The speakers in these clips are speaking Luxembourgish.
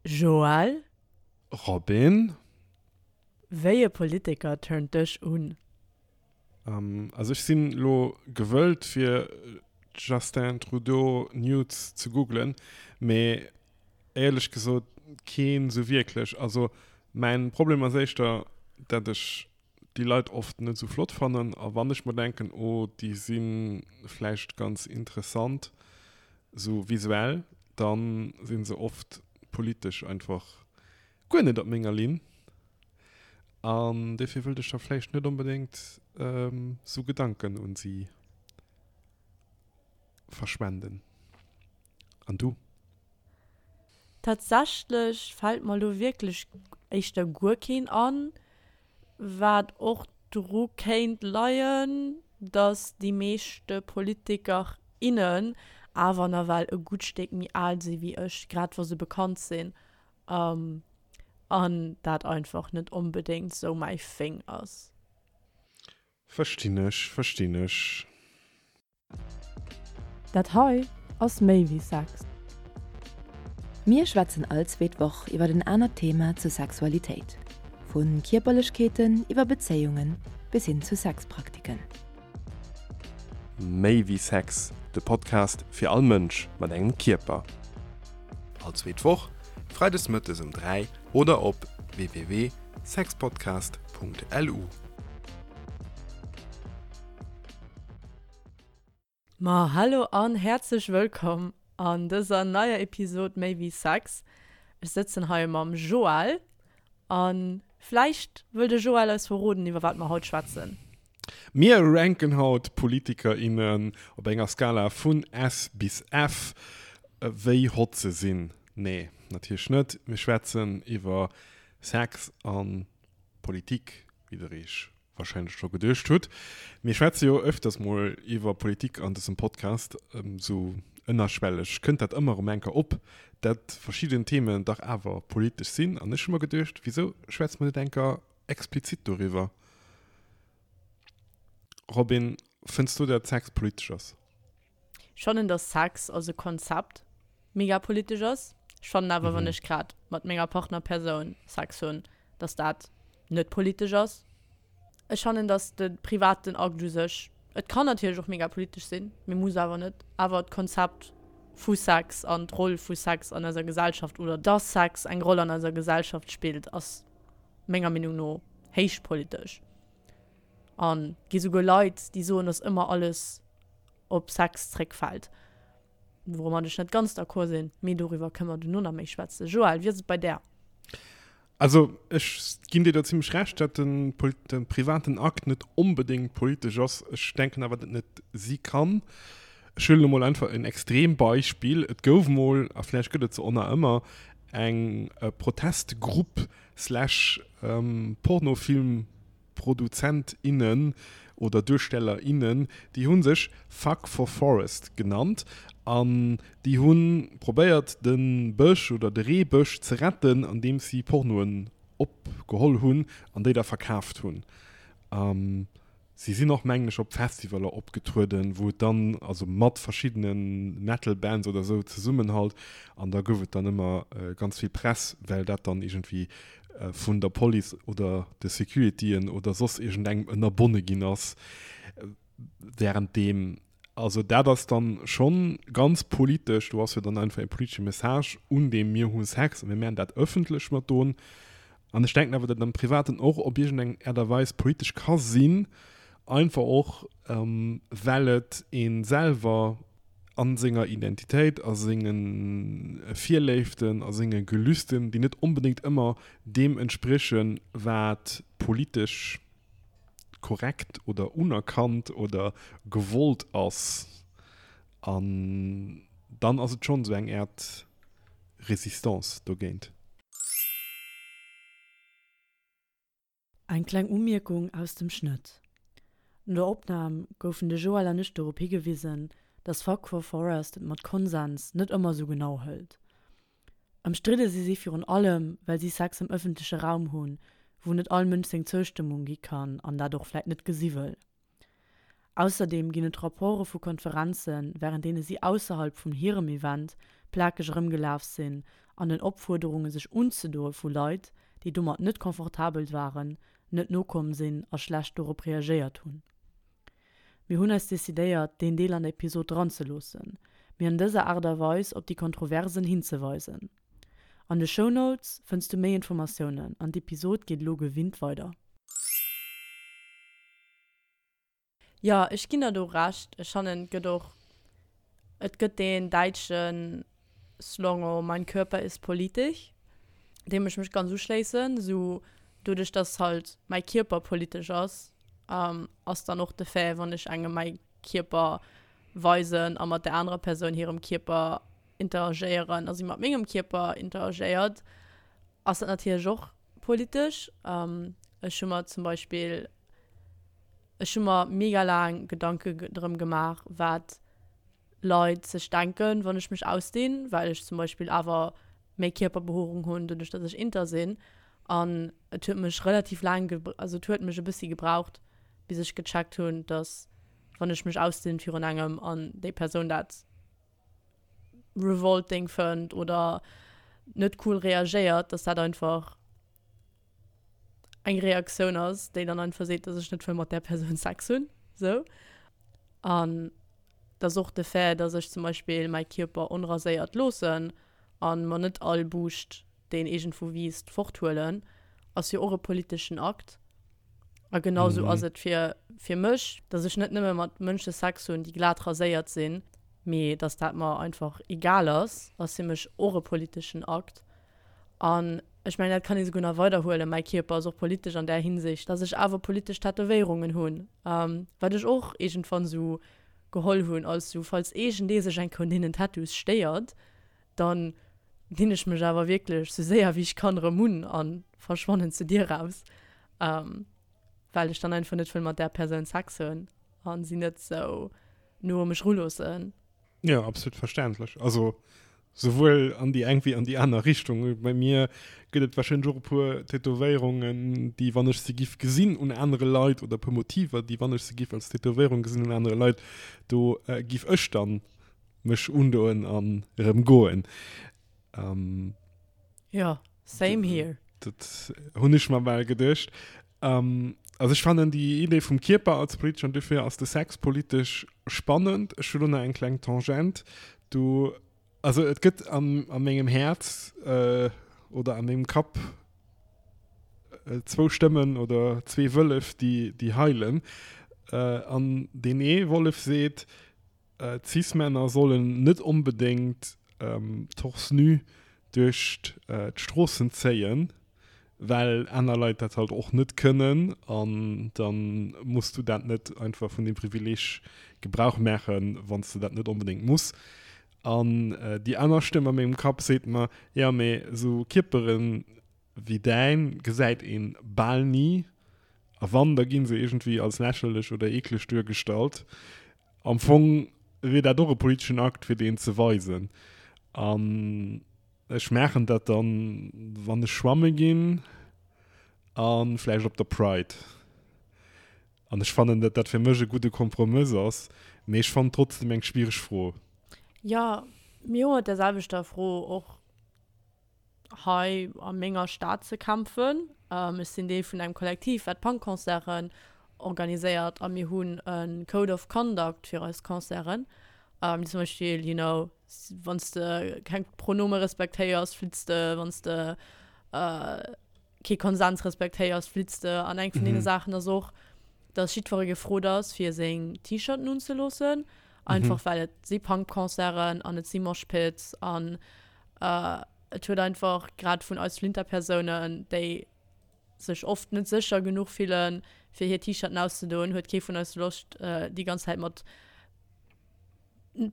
Joël? Robin? Wéi e Politiker turnt dech un? Also ech sinn lo gewëllt fir Justin Trudeau Nudes ze googlen, mee éierlech gesot keen sou wierklech. Also mäin Problem ass éischter dat ech déi Leit oft net sou flott fannen a wann ech mer denken oh déi si vläicht ganz interessant sou visuell, dann sinn se oft politesch einfach guer net op menger Linn an dofir wëllt ech da vläicht net onbedéngt sou Gedanken un si verschwenden. An du? Tatsächlech fällt mer lo wierklech éischter guer keen an, wat och dru kéint leien, dass déi meeschte Politiker, innen awer nawell e gutt Stéck méi al si wéi ech, grad wa se bekannt sinn, an dat einfach net onbedéngt sou mäi Thing ass. Verstinn ech, verstinn ech. Dat hei ass méi wéi Sex. Mir schwätzen all zweet Woch iwwer en anert Thema zur Sexualitéit, vu Kierperlechkeeten iwwer Bezéiungen bis hin zu Sexpraktiken. Méi wéi Sex, de Podcast fir all Mënsch mat engem Kierper. All zweet Woch, freides mëttes um 3 oder op www.sexpodcast.lu. Ma hallo an häerzlech wëllkomm an dëser neier Episod Méi wéi Sex. Ech sëtzen hei mam Joël an vläicht wëll de Joël eis verroden iwwer wat mer haut schwätzen. Mir ranken haut Politiker, innen op enger Skala vun S bis F, wéi hot se sinn. Nee, natierlech net. Mir schwätzen iwwer Sex an Politik, wéi der iech wahrscheinlech scho geduecht hutt. Mir schwätze jo öfters mol iwwer Politik an dësem Podcast, sou ënnerschwelleg kënnt dat ëmmer erëm eng Kéier op, dat verschidden Themen dach awer politesch sinn. An ech hu mer geduecht, wisou schwätze mer net eng Kéier explizit doriwwer? Robin, fënns du dat Sex politesch ass? Ech fannen, dass Sex als e Konzept mega politesch ass. Ech fannen awer, wann ech grad mat menger Partnerpersoun Sex hunn, dass dat net politesch ass. Ech fannen, dass de privaten Akt u sech, et kann natierlech och mega politesch sinn, mee muss awer net, awer d'Konzept vu Sex an d'Roll vu Sex an eiser Gesellschaft oder dass Sex eng Roll an eiser Gesellschaft spillt, ass menger Meenung no héich politesch. An et gi souguer Leit, déi soen, dass ëmmer alles op Sex zréckfält. Woumat ech net ganz d'accord sinn, mee doriwwer kënne mer duerno nach méi schwätzen. Joël, wéi ass et bei där? Also ech ginn dir do zimmlech Recht, datt de privaten Akt net onbedéngt politesch ass. Ech denken awer, datt et net si kann. Ech huelen emol einfach en Extrembeispill, Et gouf mol, a vläicht gëtt et se och nach ëmmer, eng Protestgrupp slash Pornofilm, Produzent, innen oder Duersteller, innen, déi hu sech Fuck for Forest genannt an déi hu probéiert de Bësch oder de Reebësch ze retten andeems si Pornoen opgeholl hunn an déi da verkaaft hunn. Si sinn och, mengen ech, op Festivaler opgetrueden, wou et dann, also mat verschiddene Metal Bands oder esou zesummen halt, an da gouf et dann ëmmer ganz vill Press, well dat dann iergendwéi vun der Police oder de Securityen oder soss iergendengem ënnerbonne ginn ass während deem. Also dat ass dann schonn ganz politesch, do ass jo dann einfach e politesche Message un deem mir hu Sex a mir maachen dat ëffentlech mat don. An ech denken awer, datt am Privaten och op iergendeng Aart a Weis politesch ka sinn, einfach och well et ee selwer a senger Identitéit, a senge Virléiften, a senge Gelüsten, déi net onbedéngt ëmmer deem entspriechen, wat politesch korrekt oder unerkannt oder gewollt ass. An dann ass et schonn esou eng Äert Resistance dogéint. Eng kleng Umierkung aus dem Schnëtt. No der Opnam goufen de Joël an ech dorop higewisen, dass Fuck for Forest et mat Konsens net ëmmer sou genau hëlt. Ëmstridde si si virun allem, well si Sex am ëffentleche Raum hunn, wou net all Mënsch seng Zoustëmmung gi kann an dat och vläit net gesi wëll. Ausserdeem ginn et Rapporte vu Konferenzen, wärend deene si ausserhalb vun hirem Event plakeg erëmgelaf sinn. an den Opfuerderunge sech unzedoe vu Leit, déi domat net confortabel waren, net nokomm sinn a schlecht dorop reagéiert hunn. Mir hunn eis decidéiert, deen Deel an der Episod dranzeloossen, mee an dëser Aart a Weis op déi Kontroversen hinzeweisen. An de Shownotes fënns du méi Informatiounen an d'Episod geet elo gewinnt weider. Jo, ech ginn der do Recht. Ech fannen, et gëtt och, et gëtt deen däitsche Slongo Mein Körper ist politisch, deem ech mech ganz uschléissen. Esou doduerch, dass halt mäi Kierper politesch ass, ass dann och de Fait, wann ech engem mäi Kierper weisen a mat der anerer Persoun hirem Kierper interagéieren a si mat mengem Kierper interagéiert, ass dat natierlech och politesch. Ech hu mer zum Beispill, ech hu mer mega laang Gedanke drëm gemaach, wat Leit sech denken, wann ech mech ausdinn, well ech zum Beispill awer méi Kierperbehoerung hunn, doduerch datt ech inter sinn. An et huet mech relativ laang, also et huet mech e bëssi gebraucht, bis ech gecheckt hunn, datt wann ech mech ausdinn virun engem an déi Persoun dat revolting fënnt oder net cool reagéiert, dass dat einfach eng Reaktioun ass, déi dann einfach seet, dass ech net wëll mat där Persoun Sex hunn, sou. An dass och de Fait, dass ech zum Beispill mäi Kierper onraséiert loossen an mer net all Buuscht, deen iergendwou wiisst, forthuelen, ass jo och e politeschen Akt. A genau sou ass et fir, fir mech, dass ech net nëmme mat Mënsche Sex hunn, déi glat raséiert sinn, mee dass dat mer einfach egal ass, ass fir mech och e politeschen Akt. An ech mengen, dat kann ee souguer nach weiderhuelen, mäi Kierper ass och politesch an där Hinsicht, dass ech awer politesch Tätowéierungen hunn, wat ech och iergendwann sou geholl hunn als sou, falls iergendee sech eng Kéier un deenen Tattoos stéiert, dann dinn ech mech awer wierklech sou séier wéi ech kann erëm un a verschwannen zur Dier raus, well ech dann einfach net wëll mat där Persoun Sex hunn a si net sou no u mech ruloossen. Jo, absolut verständlech. Also souwuel an déi eng wéi an déi aner Richtung. Bei mir gëtt et warscheinlech och e puer Tätowéierungen, déi wann ech se giff gesinn un anere Leit oder e puer Motiver, déi wann ech se giff als Tätowéierung gesinn un anere Leit, do giff ech dann mech undoen an erëm goen. Ähm, ja, same here. Dat hunn ech mer bal geduecht. Ähm, also ech fannen déi Idee vum Kierper als politesch an dofir ass de Sex politesch spannend. Ech hu lo nach eng kleng Tangent. Du, also et gëtt an, a mengem Häerz äh, oder a mengem Kapp äh, zwou Stëmmen oder zwee Wëllef, déi, déi heilen. Äh, an deen ee Wollef seet, Cis-Männer sollen net onbedéngt torse nu duerch d'Stroossen zéien, well aner Leit dat halt och net kënnen an da muss du dat net einfach vun deem Privileeg Gebrauch maachen, wann s de dat net onbedéngt muss. An déi aner Stëmm a mengem Kapp seet mer, jo mee esou Kierperen wéi däin gesäit een bal ni a wann, da ginn se iergendwéi als lächerlech oder eekleg duergestallt. Am Fong wier dat och e politeschen Akt, fir deen ze weisen. An ech maachen dat dann, wann ech schwamme ginn a vläicht op der Pride. An ech fannen, datt dat fir mech e gudde Kompromëss ass, mee ech fannen trotzdem eng schwiereg Fro. Jo, mir hu mat där selwechter Fro och hei a menger Stad ze kämpfen. Ech sinn Deel vun engem Kollektiv, wat Punk-Concerten organiséiert a mir hunn e Code of Conduct fir eis Concerten. Zum Beispill, you know, wann s de keng Pronome respektéiers, flitts de, wann s de kee Konsens respektéiers, flitts de. An eng vun deene Saachen ass och, dass jiddweree gefrot ass, fir seng T-Shirten unzeloossen, einfach well et si Punk-Concerten an et si Moshpits an Et huet einfach grad vun eis Flinterpersounen, déi sech oft net sécher genuch fillen, fir hir T-Shirten auszedoen, huet kee vun eis Loscht, déi ganz Zäit mat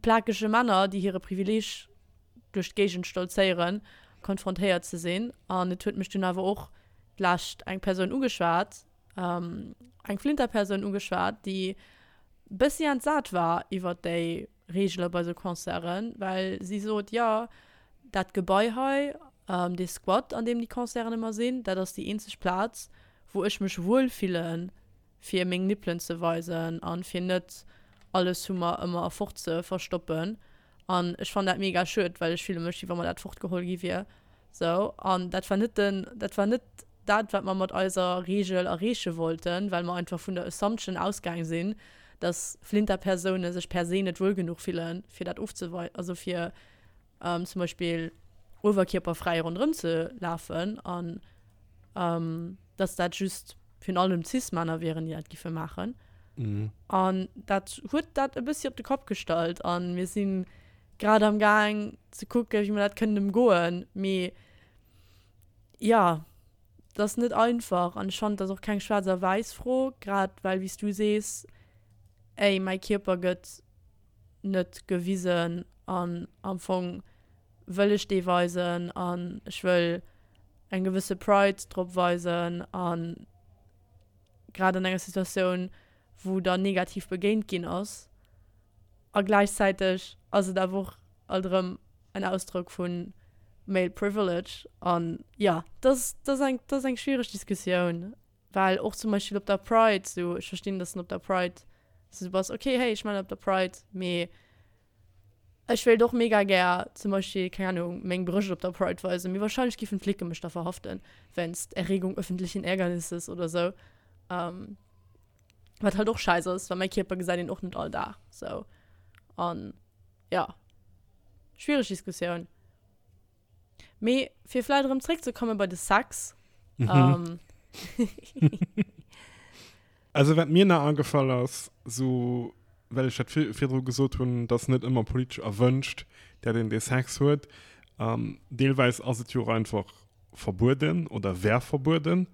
plakege Männer, déi hire Privileeg duerch d'Géigend stolzéieren, konfrontéiert ze sinn. An et huet mech dunn awer och d'lescht eng Persoun ugeschwat, eng Flinterpersoun ugeschwat, déi bëssi entsat war iwwer déi Reegele bei sou Concerten, well si sot, jo, dat Gebai hei, dee Squat, an deem déi Concerten ëmmer sinn, dat ass déi eenzeg Plaz, wou ech mech wuel fillen, fir meng Nippelen ze weisen a fir net alles vu mer ëmmer fort ze verstoppen. An ech fannen dat mega schued, well ech fille mech, wéi wa mer dat fortgeholl gi wier. Sou, an dat war net den, dat war net dat, wat mer mat eiser Reegel erreeche wollten, well mer einfach vun der Assumption ausgaang sinn, dass Flinterpersoune sech per se net wuel genuch fillen, fir dat ofzewei-, also fir zum Beispill uewerkierperfräi ronderëm ze lafen an dass dat just virun allem Cis-Männer wieren, déi dat giffe maachen. An dat huet dat e bëssi op de Kapp gestallt a mir si grad am Gaang ze kucken, wéi mer dat kënnen ëmgoen. Mee jo, et ass net einfach an ech fannen, et ass och keng schwaarz a wäiss Fro, grad well, wéi s du sees, ey, mäi Kierper gëtt net gewisen an am Fong wëll ech dee weisen an ech wëll eng gewësse Pride drop weisen an grad an enger Situatioun wou der negativ begéint ginn ass a gläichzäiteg ass et awer och alt erëm en Ausdrock vu male privilege an jo dat ass eng dat ass eng schwiereg Diskussioun. Well och zum Beispill op der Pride, sou ech verstinn, dass en op der Pride sou bass, okay, hey, ech man op der Pride, mee ech wéilt och mega gär zum Beispill, keng Ahnung, meng Brëscht op der Pride weisen, mee wahrscheinlech giffen d'Flicken mech da verhaften wéinst Erregung öffentlichen Ärgernisses oder sou. Ähm, wat halt och scheiss ass, well mäi Kierper gesäit een och net all Dag sou. An ja, schwiereg Diskussioun. Mee fir vläit erëm zréckzekomme bei de Sex. Mhm. Ähm. Also wat mir nach agefall ass, sou well ech dat virdru gesot hunn, dass net ëmmer politesch erwënscht, dat een dee Sex huet. Ähm, deelweis ass et jo och einfach verbueden oder wär verbueden.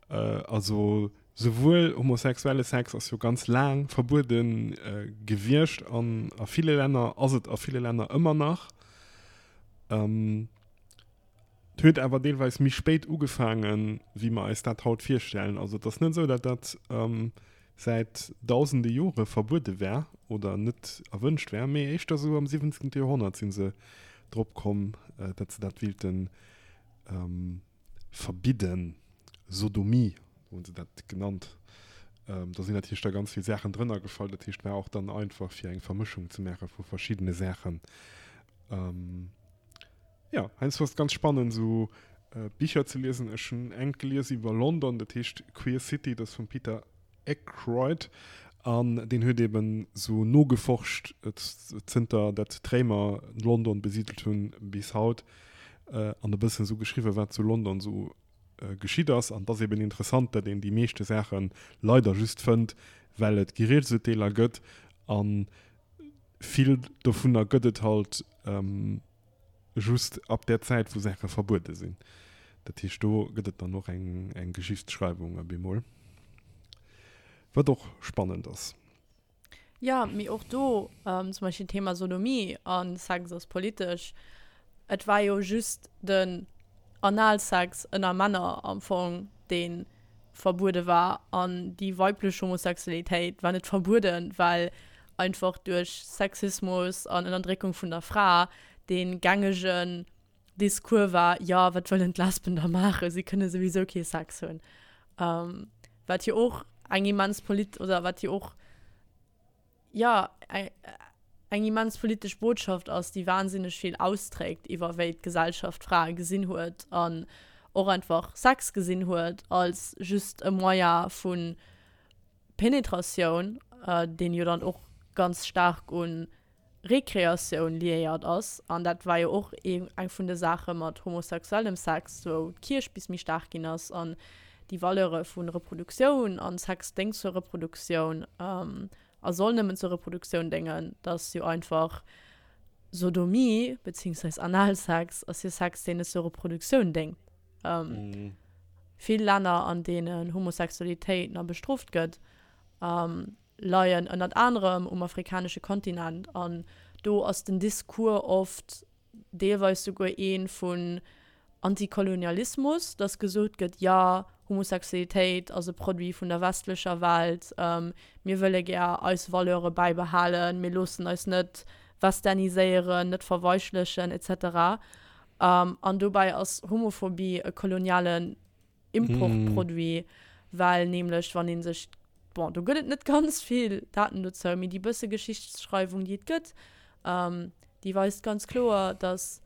Äh, also souwuel homosexuelle Sex ass jo ganz laang verbuede äh, gewiescht an a ville Länner ass et a ville Länner ëmmer nach. Ähm, et huet awer deelweis méi spéit ugefaangen, wéi mer eis dat haut virstellen. Also et ass net esou, datt dat ähm, säit dausende Jore verbuede wär oder net erwënscht wär, mee éischter esou am 17. Joerhonnert si se drop komm, äh, datt se dat wilten ähm, verbidden, Sodomie hu se dat genannt. Do sinn natierlech da ganz vill Saachen drënner gefall. Dat heescht, war och dann einfach fir eng Vermëschung ze maache vu verschiddene Saachen. Jo, heiansdo ass et ganz spannend esou Bicher ze liesen. Ech hunn engt gelies iwwer London, dat heescht Queer City, dat ass vum Peter Ackroyd an deen huet eben esou nogeforscht zënter dat d'Réimer London besidelt hunn bis haut an e bëssen esou geschriwwen wat zu London esou geschitt ass. An et ass eben interessant, datt een déi meeschte Saache leider just fënnt, well et Geriichtsurteeler gëtt a vill dovunner gëtt et halt just ab där Zäit, wou Saache verbuede sinn. Dat heescht, do gëtt et dann och eng, eng Geschichtsschreiwung op eemol, wat och spannend ass. Jo, mee och do, zum Beispill Thema Sodomie a Sex ass politesch, et war jo just den Analsex ënner Männer am Fong, dee verbuede war an déi weiblech Homosexualitéit war net verbueden, well einfach duerch Sexismus an Ënnerdréckung vun der Fra dee gängegen Discours war, jo, wat wëllen d'Lesben da maachen, si kënne souwisou kee Sex hunn. Wat jo och eng immens polit oder wat jo och, jo, eng immens politesch Botschaft ass, déi wahnsinneg vill austrägt iwwer wéi d'Gesellschaft Frae gesinn huet an och einfach Sex gesinn huet als just e Moyen vu Penetratioun, deen jo dann och ganz staark un Rekreatioun liéiert ass. An dat war jo och eng vun de Saache mat homosexuellem Sex, wou d'Kierch bis méi staark ginn ass an déi Valeure vu Reproduktioun an Sex déngt zur Reproduktioun a soll nëmmen zur Reproduktioun déngen, dass jo einfach Sodomie beziehungsweise Analsex ass jo Sex, deen net zur Reproduktioun déngt. Vill Länner, an deenen Homosexualitéit nach bestrooft gëtt, leien ënnert anerem um afrikanesche Kontinent an do ass den Discours oft deelweis souguer ee vun Antikolonialismus, dass gesot gëtt, jo, Homosexualitéit ass e Produit vun der westlecher Welt, mir wëlle gär eis Valeure bäibehalen, mir loossen eis net westerniséieren, net verweichlechen, etc. An dobäi ass Homophobie e kolonialen Importproduit, well nämlech wann ee sech, bon, do gëtt et net ganz vill Daten dozou, mee déi bësse Geschichtsschreiwung, déi et gëtt, déi weist ganz kloer, dass.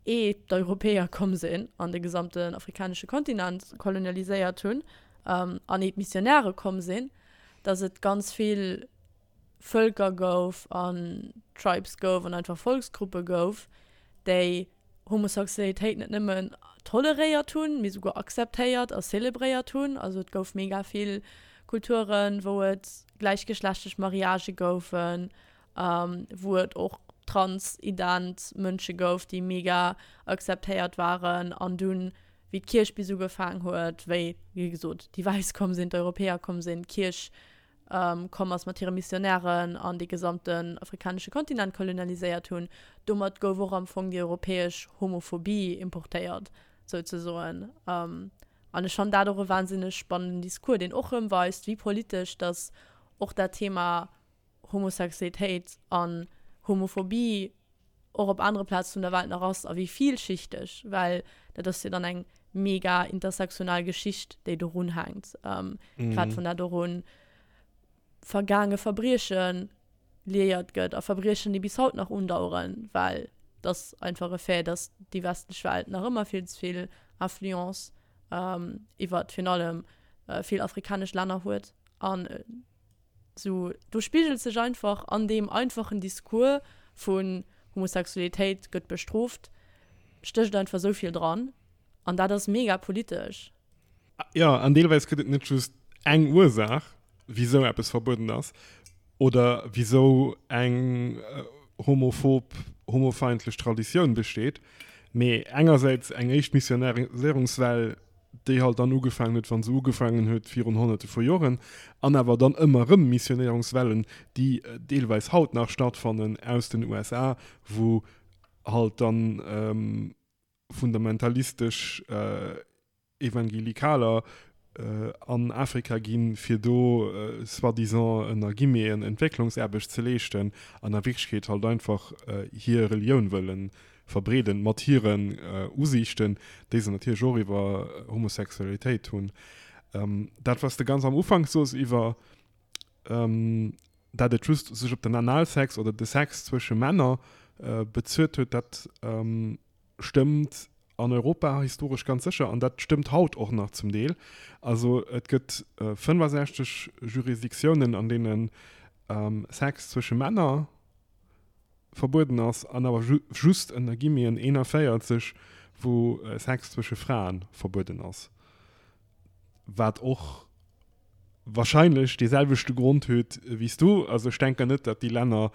Ee d'Europäer komm sinn an de gesamten afrikanesche Kontinent kolonialiséiert hunn an ee d'Missionäre komm sinn, datt et ganz vill Vëlker gouf an Tribes gouf an einfach Volksgruppe gouf, déi Homosexualitéit net nëmmen toleréiert hunn, mee souguer akzeptéiert a zelebréiert hunn. Also et gouf mega vill Kulturen, wou et gläichgeschlechtlech Mariagë goufen, wou et och transident Mënsche gouf, déi mega akzeptéiert waren. An dunn, wéi d'Kierch bis ugefaang huet, wéi, wéi gesot, déi Wäiss komm sinn, d'Europäer komm sinn, d'Kierch komm ass mat hire Missionären an dee gesamten afrikanesche Kontinent kolonialiséiert hunn, domat gouf och am Fong déi europäesch Homophobie importéiert, souzesoen. An ech fannen dat och e wahnsinneg spannenden Discours, deen och erëm weist, wéi politesch dass och dat Thema Homosexualitéit an Homophobie och op anere Plaze vun der Welt nach ass a wéi vielschichteg, well dat ass jo dann eng mega intersektional Geschicht, déi dorun hänkt, grad wann dat och un vergaange Verbrieche liéiert gëtt a Verbriechen, déi bis haut nach undaueren, well et ass einfach e Fait, dass déi westlech Welt nach ëmmer vill ze vill Influence iwwert virun allem vill afrikanesch Länner huet an Sou, do spigelt sech einfach an deem einfachen Discours vun Homosexualitéit gëtt bestrooft, stécht einfach sou vill dran. An dat ass mega politesch. Jo, an deelweis gëtt et net just eng Ursaach, wisou eppes verbueden ass oder wisou eng homophob, homofeindlech Traditioun besteet, mee engersäits eng éischt Missionariséierungswell, déi halt dann ugefaangen huet, wa se ugefaangen huet virun Honnerte vu Joren, an awer dann ëmmer erëm Missionéierungswellen, déi deelweis haut nach stattfannen aus den USA, wou halt dann fundamentalistesch Evangelikaler an Afrika ginn, fir do soi-disant ënner Guillemeten Entwécklungsaarbecht ze leeschten an a Wierklechkeet halt einfach hir Relioun wëllen verbreeden, mat hiren Usiichten, déi se natierlech och iwwer Homosexualitéit hunn. Dat, wat s de ganz am Ufank soos iwwer, dat et just sech op den Analsex oder de Sex zwësche Männer bezuet huet, dat stëmmt an Europa historesch ganz sécher an dat stëmmt haut och nach zum Deel. Also et gëtt 65 Jurisdiktiounen, an deene Sex zwësche Männer verbueden ass an awer just ënner Guillemeten 41, wou Sex zwësche Frae verbueden ass, wat och wahrscheinlech dee selwechte Grond huet wéi s du. Also ech denken net, datt déi Länner,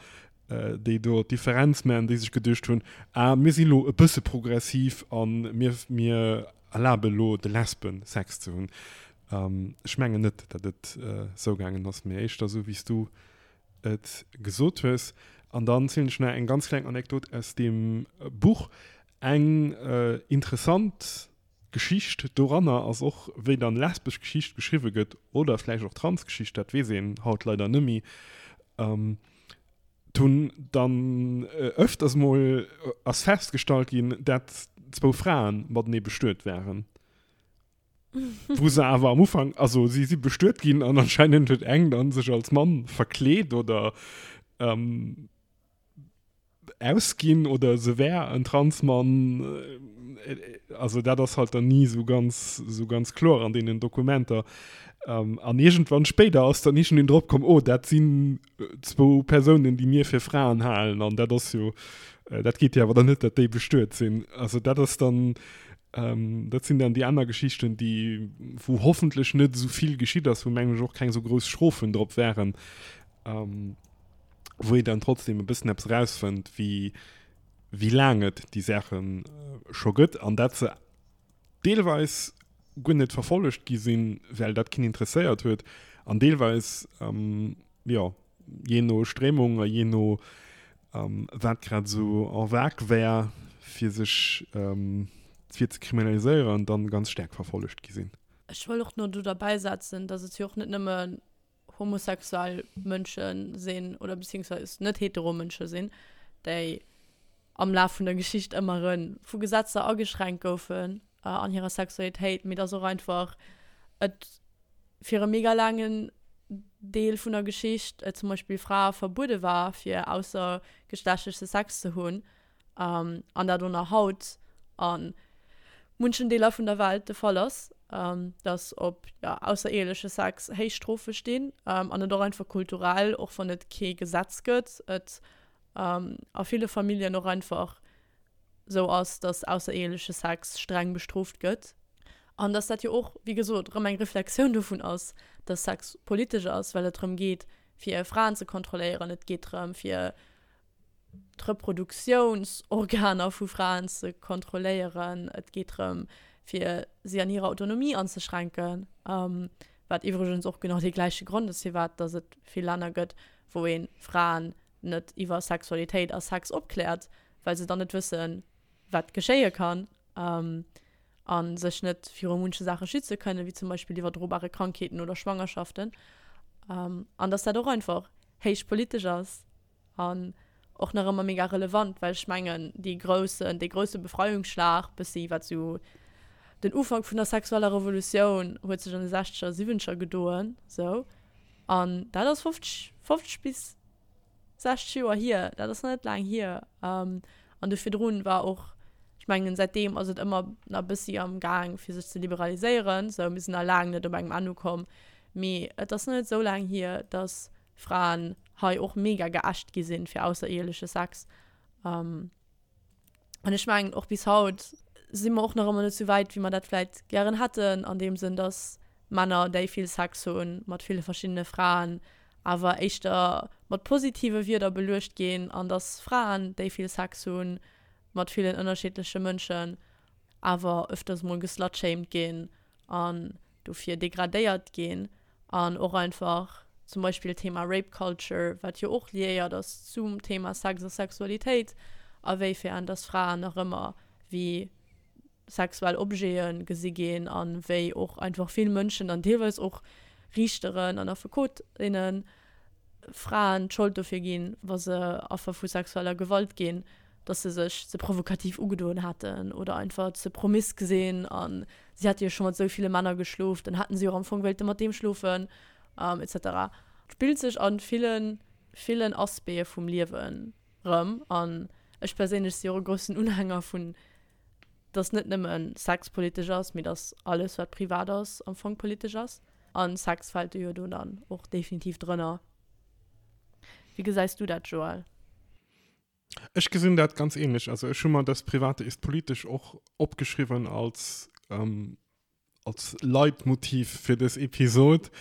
déi do d'Differenz maachen, déi sech geduecht hunn, ah mir si lo e bësse progressiv a mir, mir erlabe lo de Lesben Sex ze hunn. Ech mengen net, datt et esou gaangen ass, mee éischter esou wéi s du et gesot hues. An dann zielen ech nach eng ganz kleng Anekdot aus deem Buch. Eng interessant Geschicht doranner ass och, wéi dann lesbesch Geschicht geschriwwe gëtt, oder vläicht och Transgeschicht, dat weess een haut leider nëmmi. Et hunn dann öfters mol ass festgestallt ginn, dat zwou Fraen matenee bestuet waren. Wou se awer am Ufank, also si si bestuet ginn an anscheinend huet eng dann sech als Mann verkleet oder ähm, ausginn oder se wär en Transmann. Also dat ass halt dann ni sou ganz, sou ganz kloer an deenen Dokumenter. Ähm, an iergendwann spéider ass dann iergendeen drop komm, oh dat sinn zwou Persounen, déi mir fir Fraen halen an dat ass jo, dat geet jo awer dann net, datt déi bestuet sinn. Also dat ass dann, Ähm, dat sinn dann déi aner Geschichten, déi, wou hoffentlech net esou vill geschitt ass, wou mengen ech och keng esou grouss Strofen drop wären, ähm, wou ee dann trotzdem e bëssen eppes erausfënnt, wéi, wéi laang et déi Saache scho gëtt an dat se deelweis guer net verfollegt gi sinn, well dat keen interesséiert huet an deelweis, ähm, jo, jee no Stréimung a jee no wat grad esou en vogue wär, fir sech fir ze kriminaliséieren, dann ganz staark verfollegt gi sinn. Ech wëll och no do derbäi setzen, dass et jo och net nëmme homosexuell Mënsche sinn oder beziehungsweise net hetero Mënsche sinn, déi am Laf vun der Geschicht ëmmer erëm vu Gesetzer ageschränkt goufen an hirer Sexualitéit, mee dass och einfach et fir e mega laangen Deel vun der Geschicht et zum Beispill Frae verbuede war, fir aussergeschlechtleche Sex ze hunn. An dat och nach haut a munchen Deeler vun der Welt de Fall ass, dass op aussereheeleche Sex héich Strofe stinn an et och einfach kulturell, och wann et kee Gesetz gëtt, et a ville Familljen och einfach sou ass, dass aussereheeleche Sex streng bestrooft gëtt. An dass dat jo och, wéi gesot, erëm eng Reflexioun dovun ass, dass Sex politesch ass, well et drëm geet, fir Fraen ze kontrolléieren, et geet drëm, fir d'Reproduktiounsorganer vu Fraen ze kontrolléieren, et geet drëm, fir si an hirer Autonomie anzeschränken, wat iwwregens och genau dee gläiche Grond ass, firwat dass et vill Länner gëtt, wou ee Fraen net iwwer Sexualitéit a Sex opkläert, well se dann net wëssen, wat geschéie kann a sech net viru munche Saache schütze kënnen, wéi zum Beispill iwwerdrobare Krankheeten oder Schwangerschaften. An dass dat och einfach héich politesch ass an och nach ëmmer mega relevant, well ech mengen, déi groussen, dee grousse Befreiungsschlag, bëssi wat sou den Ufank vun der sexueller Revolutioun huet sech an de sechzeger, siwwenzeger gedoen, sou. An dat ass 50, 50 bis 60 Joer hier, dat ass nach net laang hier. An do virdrun war och, ech mengen säitdeem ass et ëmmer nach e bëssi am Gaang fir sech ze liberaliséieren, sou mir sinn nach laang net op engem Enn ukomm, mee et ass nach net esou laang hier, datt Fraen hei och mega geächt gi sinn fir aussereheeleche Sex. An ech mengen, och bis haut si mer och nach ëmmer net esou wäit, wéi mer dat vläit gären hätten, an deem Sënn, dass Männer, déi vill Sex hunn mat ville verschiddene Fraen, awer éischter mat positive Wierder beluecht ginn, an dass Fraen, déi vill Sex hunn mat villen ënnerschiddleche Mënschen, awer öfters mol geslutshamed ginn an dofir degradéiert ginn an och einfach zum Beispill Thema Rape Culture, wat jo och liéiert ass zum Thema Sex a Sexualitéit, a wéifern dass Fraen nach ëmmer wéi sexuell Objete gesi ginn a wéi och einfach vill Mënschen an deelweis och Riichteren an Affekotinnen Fraen d'Schold dofir ginn, wa se Affer vu sexueller Gewalt ginn, dass se sech ze provokativ ugedoen hätten oder einfach ze promisk sinn a si hätte jo scho mat esou ville Männer geschlof, dann hätten si och am Fong wéilte mat deem schlofen, etc. Spillt sech a villen, villen Aspecte vum Liewen rëm an ech perséinlech si och e groussen Unhänger vun, dass net nëmme Sex politesch ass, mee dass alles wat privat ass am Fong politesch ass an Sex fält do jo do dann och definitiv drënner. Wéi gesäis du dat, Joël? Ech gesinn dat ganz ähnlech. Also ech hu mer das Private ist politisch och opgeschriwwen als, ähm, als Leitmotiv fir dës Episod.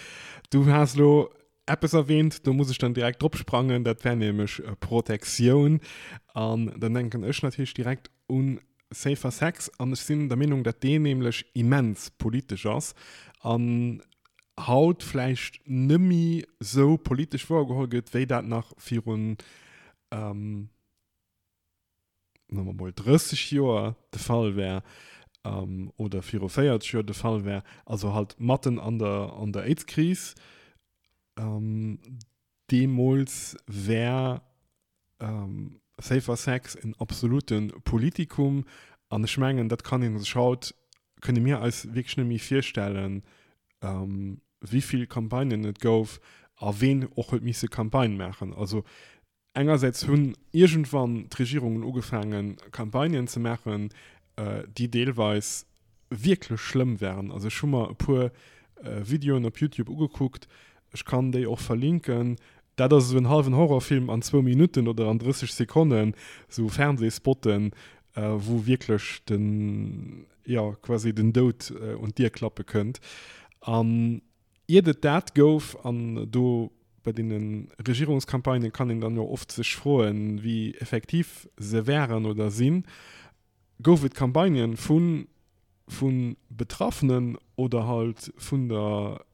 Du has lo eppes erwähnt, do muss ech dann direkt drop sprangen, dat wär nämlech äh, Protektioun. An dann denken ech natierlech direkt un Safer Sex an ech sinn der Meenung, dat deen nämlech immens politesch ass an haut vläicht nëmmi sou politesch wouergeholl gëtt, wéi dat nach virun ähm, soe mer mol 30 Joer de Fall wär ähm, oder viru 40 Joer de Fall wär, also halt matten an der, an der AIDS-Kris. Ähm, deemools wär ähm, Safer Sex en absolute Politikum an ech mengen, dat kann ee sech haut, kënne mir eis wierklech net méi virstellen, ähm, wéi vill Campagnen et gouf a ween och huet misse Campagne maachen. Also engersäits hunn iergendwann d'Regierungen ugefaangen, Campagnen ze maachen, déi deelweis wierklech schlëmm waren. Also ech hu mer e puer Videoen op Youtube ugekuckt, ech kann déi och verlinken. Dat ass esou en hallwen Horrorfilm an zwou Minutten oder an 30 Sekonnen, esou Fernsehspotten, wou wierklech den, jo, quasi den Doud un d'Dier klappe kënnt. An iert et dat gouf, an do bei deene Regierungscampagnen kann een dann jo oft sech froen, wéi effektiv se wären oder sinn, gouf et Campagnen vu vu Betraffenen oder halt vun der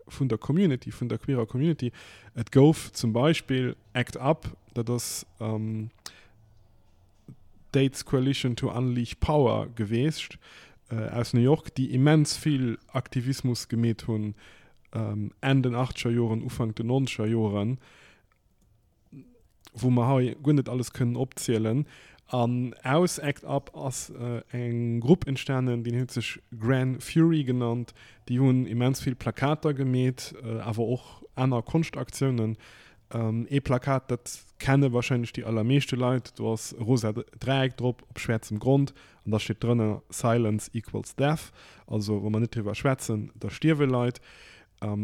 vun der Community, vun der queerer Community. Et gouf zum Beispill Act Up, dat ass d'AIDS Coalition to Unleash Power geweecht aus New York, déi immens vill Aktivismus gemeet hunn Enn den achtzeger Joren, Ufank den nonzeger Joren. wou mer hei guer net alles kënnen opzielen. An aus Act Up ass eng Grupp entstanen, déi huet sech Gran Fury genannt. Déi hunn immens vill Plakater gemeet, awer och aner Konschtaktiounen. Ee Plakat, dat kenne warscheinlech déi allermeeschte Leit, do ass e rosa Dräieck drop op schwäerzem Grond an da steet drënner Silence equals death, also wa mer net driwwer schwätzen, da stierwe Leit.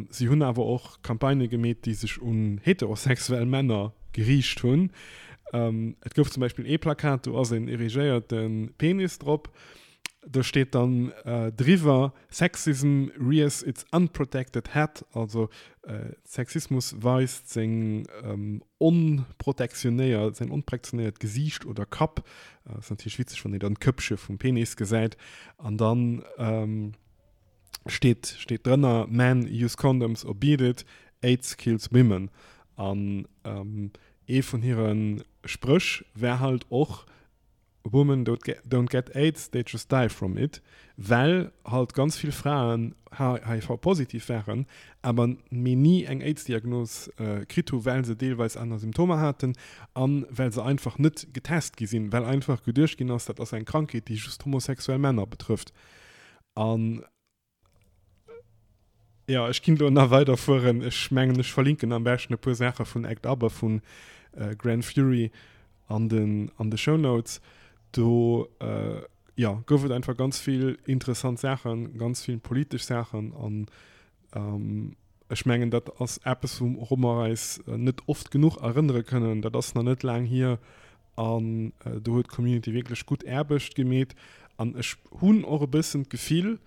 Si hunn awer och Campagnë gemeet, déi sech un heterosexuell Männer geriicht hunn. Et gouf zum Beispill ee Plakat, do ass een erigéierte Penis drop. Do steet dann driwwer, Sexism rears its unprotected head, also Sexismus weist seng onprotektionéiert, säin onprektionéiert Gesiicht oder Kapp. Ass natierlech witzeg, wann een dann d'Köppche vum Penis gesäit. An dann steet steet drënner, Men use condoms or beat it, AIDS kills women. An ee vun hire Spréch war halt och, Women don't get AIDS, they just die from it, well halt ganz vill Fraen HIV-positiv waren, awer mee ni eng AIDS-Diagnos kritt hu well se deelweis aner Symptomer haten a well se einfach net getest gi sinn, well einfach geduecht ginn ass, dat ass eng Krankheet, déi just homosexuell Männer betrëfft. An Jo, ech ginn do nach weider fueren. Ech mengen, ech verlinken am beschten e puer Saache vun Act Up a vun Grand Fury an den, an de Shownotes. Do, jo, gouf et einfach ganz vill interessant Saachen, ganz vill politesch Saachen an ech mengen, dat ass eppes, wouru mer eis net oft genuch erënnere kënnen. Dat ass nach net laang hier an do huet d'Community wierklech gutt Aarbecht gemeet an ech hunn och e bëssen d'Gefill,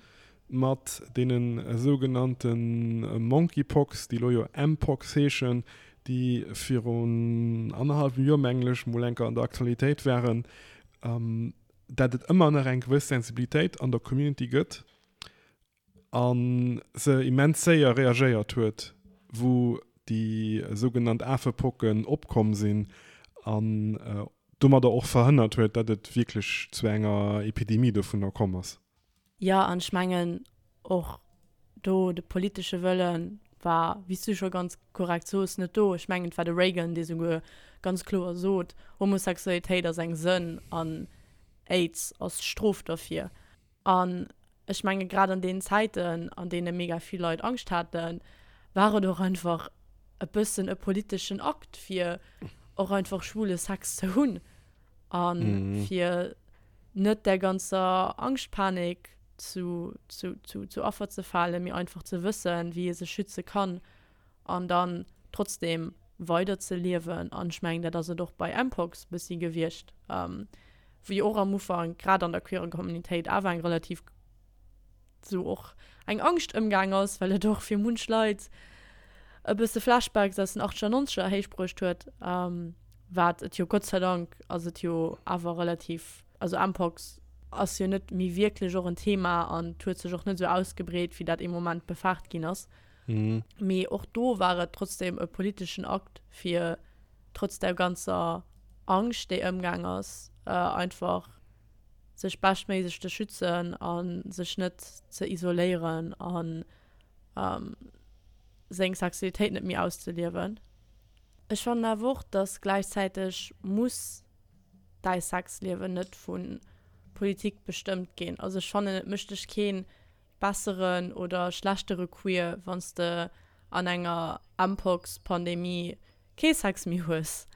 mat deene sougenannte Monkeypox, déi elo jo Mpox heeschen, déi virun annerhallwem Joer, mengen ech, mol eng Kéier an der Aktualitéit waren, dat et ëmmer nach eng gewëss Sensibilitéit an der Community gëtt a se immens séier reagéiert huet, wou déi sougenannt Afepocken opkomm sinn an domadder och verhënnert huet, datt et wierklech zu enger Epidemie dovunner komm ass. Jo, an ech mengen och do de politesche Wëlle war, wéi s du scho ganz korrekt sos, net do. Ech mengen, et war de Reagan, dee souguer ganz kloer sot, Homosexualitéit ass eng Sënn an Aids ass d'Strof derfir. An ech menge grad an deenen Zäiten, an deene mega vill Leit Angscht haten, war et och einfach e bëssen e politeschen Akt, fir och einfach schwule Sex ze hunn a fir net där ganzer Angschtpanik zu, zu, zu, zu Affer ze falen, mee einfach ze wëssen, wéi ee sech schütze kann an dann trotzdem weider ze liewen. An ech mengen, dat ass et och bei Mpox bëssi gewiescht, wou jo och am Ufank grad an der queerer Communitéit awer eng relativ sou och eng Angscht ëmgaang ass, well et och fir munch Leit e bësse Flashbacks aus den achtzeger, nonzeger héichbruecht huet, wat et jo Gott sei Dank ass et jo awer relativ, also Mpox ass jo net méi wierklech och en Thema an et huet sech och net esou ausgebreet, wéi dat ee Moment befaart ginn ass. Mee och do war et trotzdem e politeschen Akt, fir trotz der ganzer Angscht, déi ëmgaang ass, einfach sech beschtméiglech ze schützen a sech net ze isoléieren a seng Sexualitéit net méi auszeliewen. Ech fannen awer och, dass gläichzäiteg muss däi Sexliewen net vu Politik bestëmmt ginn. Also ech fannen, et mécht dech kee besseren oder schlechtere Queer, wann s de an enger Mpox-Pandemie kee Sex méi hues.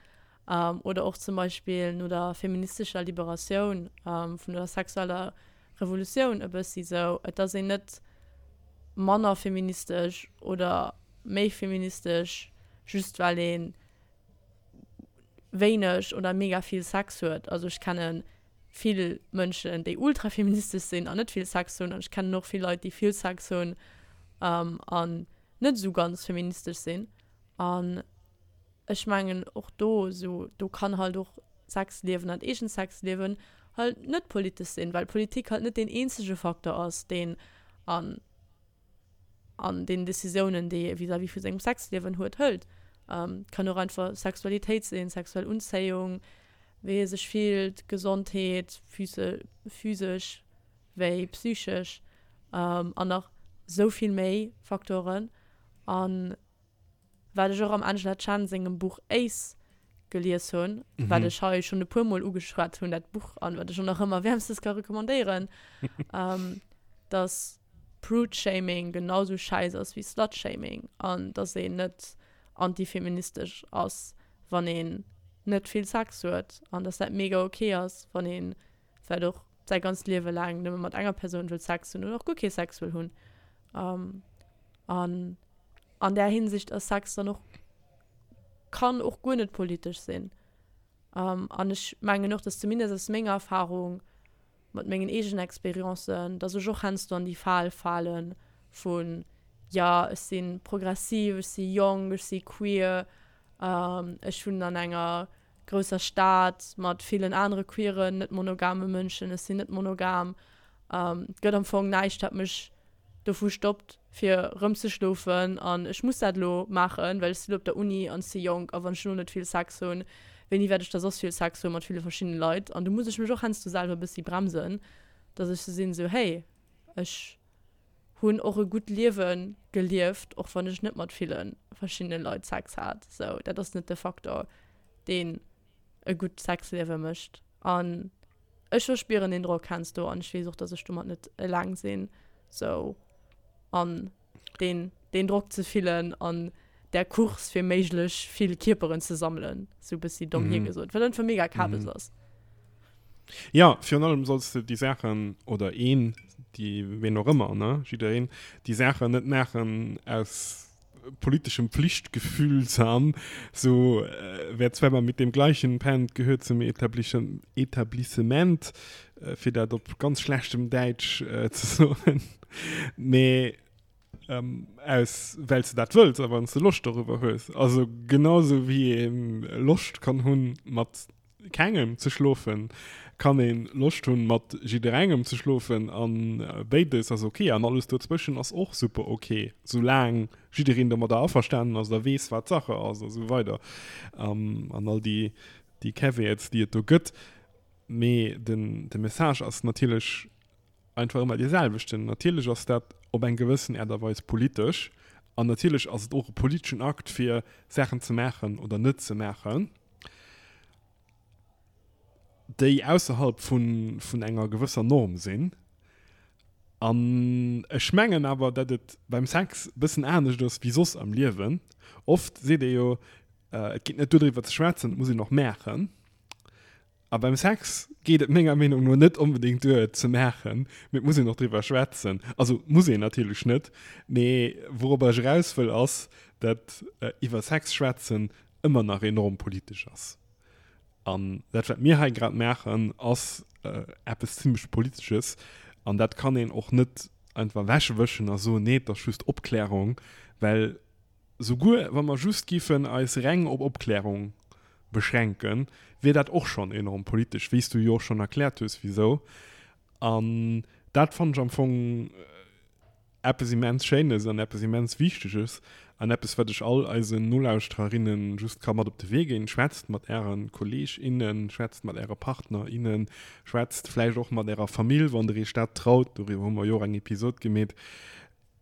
Oder och zum Beispill no der feministescher Liberatioun, vun der sexueller Revolutioun e bëssi sou, et ass een net manner feministesch oder méi feministesch, just well ee wéineg oder mega vill Sex huet. Also ech kenne vill Mënschen, déi ultrafeministesch sinn an net vill Sex hunn an ech kennen och vill Leit, déi vill Sex hunn an net esou ganz feministesch sinn. An ech mengen och do esou, do kann halt och Sexliewen an eegent Sexliewen halt net politesch sinn, well Politik halt net deen eenzege Facteur ass, deen an an den Decisiounen, déi ee vis-à-vis vu sengem Sexliewen huet, hëlt. Kann och einfach Sexualitéit sinn, sexuell Unzéiung, wéi ee sech fillt, Gesondheet, physesch wéi psychesch an nach sou vill méi Faktoren. An wat ech och am Angela Chen sengem Buch Ace gelies hunn, wat ech hei schonn e puer Mol ugeschwat hunn, dat Buch, an wat ech och nach ëmmer wäermstens ka recommandéieren, dass Prude-Shaming genau sou schäiss ass wéi Slut-Shaming an dass een net. antifeministesch ass, wann een net vill Sex huet an dass dat mega ok ass, wann ee vläicht och säi ganzt Liewe laang nëmme mat enger Persoun wëll Sex hunn oder och guer kee Sex wëll hunn. An an där Hinsicht ass Sex dann och, kann och guer net politesch sinn. An ech mengen och, dass zumindest aus menger Erfahrung mat mengen eegenen Experiencen, dass ech och heiansdo an déi Fal fale vun, jo, ech si progressiv, ech si jonk, ech si queer, ech wunnen an enger grousser Stad mat villen anere queeren, net monogame Mënschen, ech sinn net monogam. Et gëtt am Fong näischt, wat mech dovu stoppt fir rëm ze schlofen an ech muss dat elo maachen, well ech sinn elo op der Uni an ech si jonk a wann ech elo net vill Sex hunn, wéini wäert ech da soss vill Sex hu mat ville verschiddene Leit? An do muss ech mech och heiansdo selwer e bëssi bremsen, dass ech sou sinn, sou hey, ech hunn och e gutt Liewe gelieft, och wann ech net mat ville verschiddene Leit Sex hat. Sou dat ass net de Faktor, deen e gutt Sexliewe mécht. An ech verspieren deen Drock heiansdo an ech weess och, dass ech domat net eleng sinn. Sou an deen, deen Drock ze fillen an där Course fir méiglech vill Kierperen ze sammelen, sou bëssi domm hiergesot, wat einfach mega Kabes ass. Jo, virun allem solls de déi Saachen, oder een, déi, ween och ëmmer, ne, jiddereen, déi Saachen net maachen aus politischem Pflichtgefühl an so wer zweimal mit dem gleichen pennt, gehört zum Etablissement, fir dat op ganz schlechtem Däitsch ze soen, mee aus well s de dat wëlls a wann s de Loscht dorüwer hues. Also genau sou wéi ee Loscht kann hunn mat kengem ze schlofen, kann een Loscht hunn mat jidderengem ze schlofen an béides ass ok an alles dozwëschen ass och super ok, soulaang jiddereen domadder averstanen ass a weess wat Sache ass a sou weider an all déi déi Caveats déi et do gëtt. Mee den de Message ass natierlech einfach ëmmer dee selwechten. Natierlech ass dat op eng gewëssen Aart a Weis politesch an natierlech ass et och e politeschen Akt fir Saachen ze maachen oder net ze maachen. déi ausserhalb vun, vun enger gewësser Norm sinn. An ech mengen awer, datt et beim Sex e bëssen anescht ass wéi soss am Liewen. Oft seet ee jo, et geet net duer driwwer ze schwätzen, et muss een och maachen. A beim Sex geet et menger Meenung no net onbedéngt duer et ze maachen, mee et muss een och driwwer schwätzen. Also muss een natierlech net, mee wourobber ech eraus wëll ass, datt iwwer Sex schwätzen ëmmer nach enorm politesch ass. An dat, wat mir hei grad maachen, ass eppes zimlech Politesches. An dat kann een och net einfach ewechwëschen a soen, nee, et ass just Opklärung. Well souguer wa mer just géifen eis reng op Opklärung beschränken, wier dat och schonn enorm politesch, wéi s du jo och schonn erkläert hues, wisou. An dat fannen ech am Fong eppes immens Schéines an eppes immens Wichteges an eppes, wat ech all eisen Nolauschtererinnen just ka mat op de Wee ginn, Schwätzt mat äre Kolleeg, innen, schwätzt mat äre Partner, innen, schwätzt vläicht och mat ärer Famill, wann der iech dat traut, doriwwer hu mer jo och eng Episod gemeet,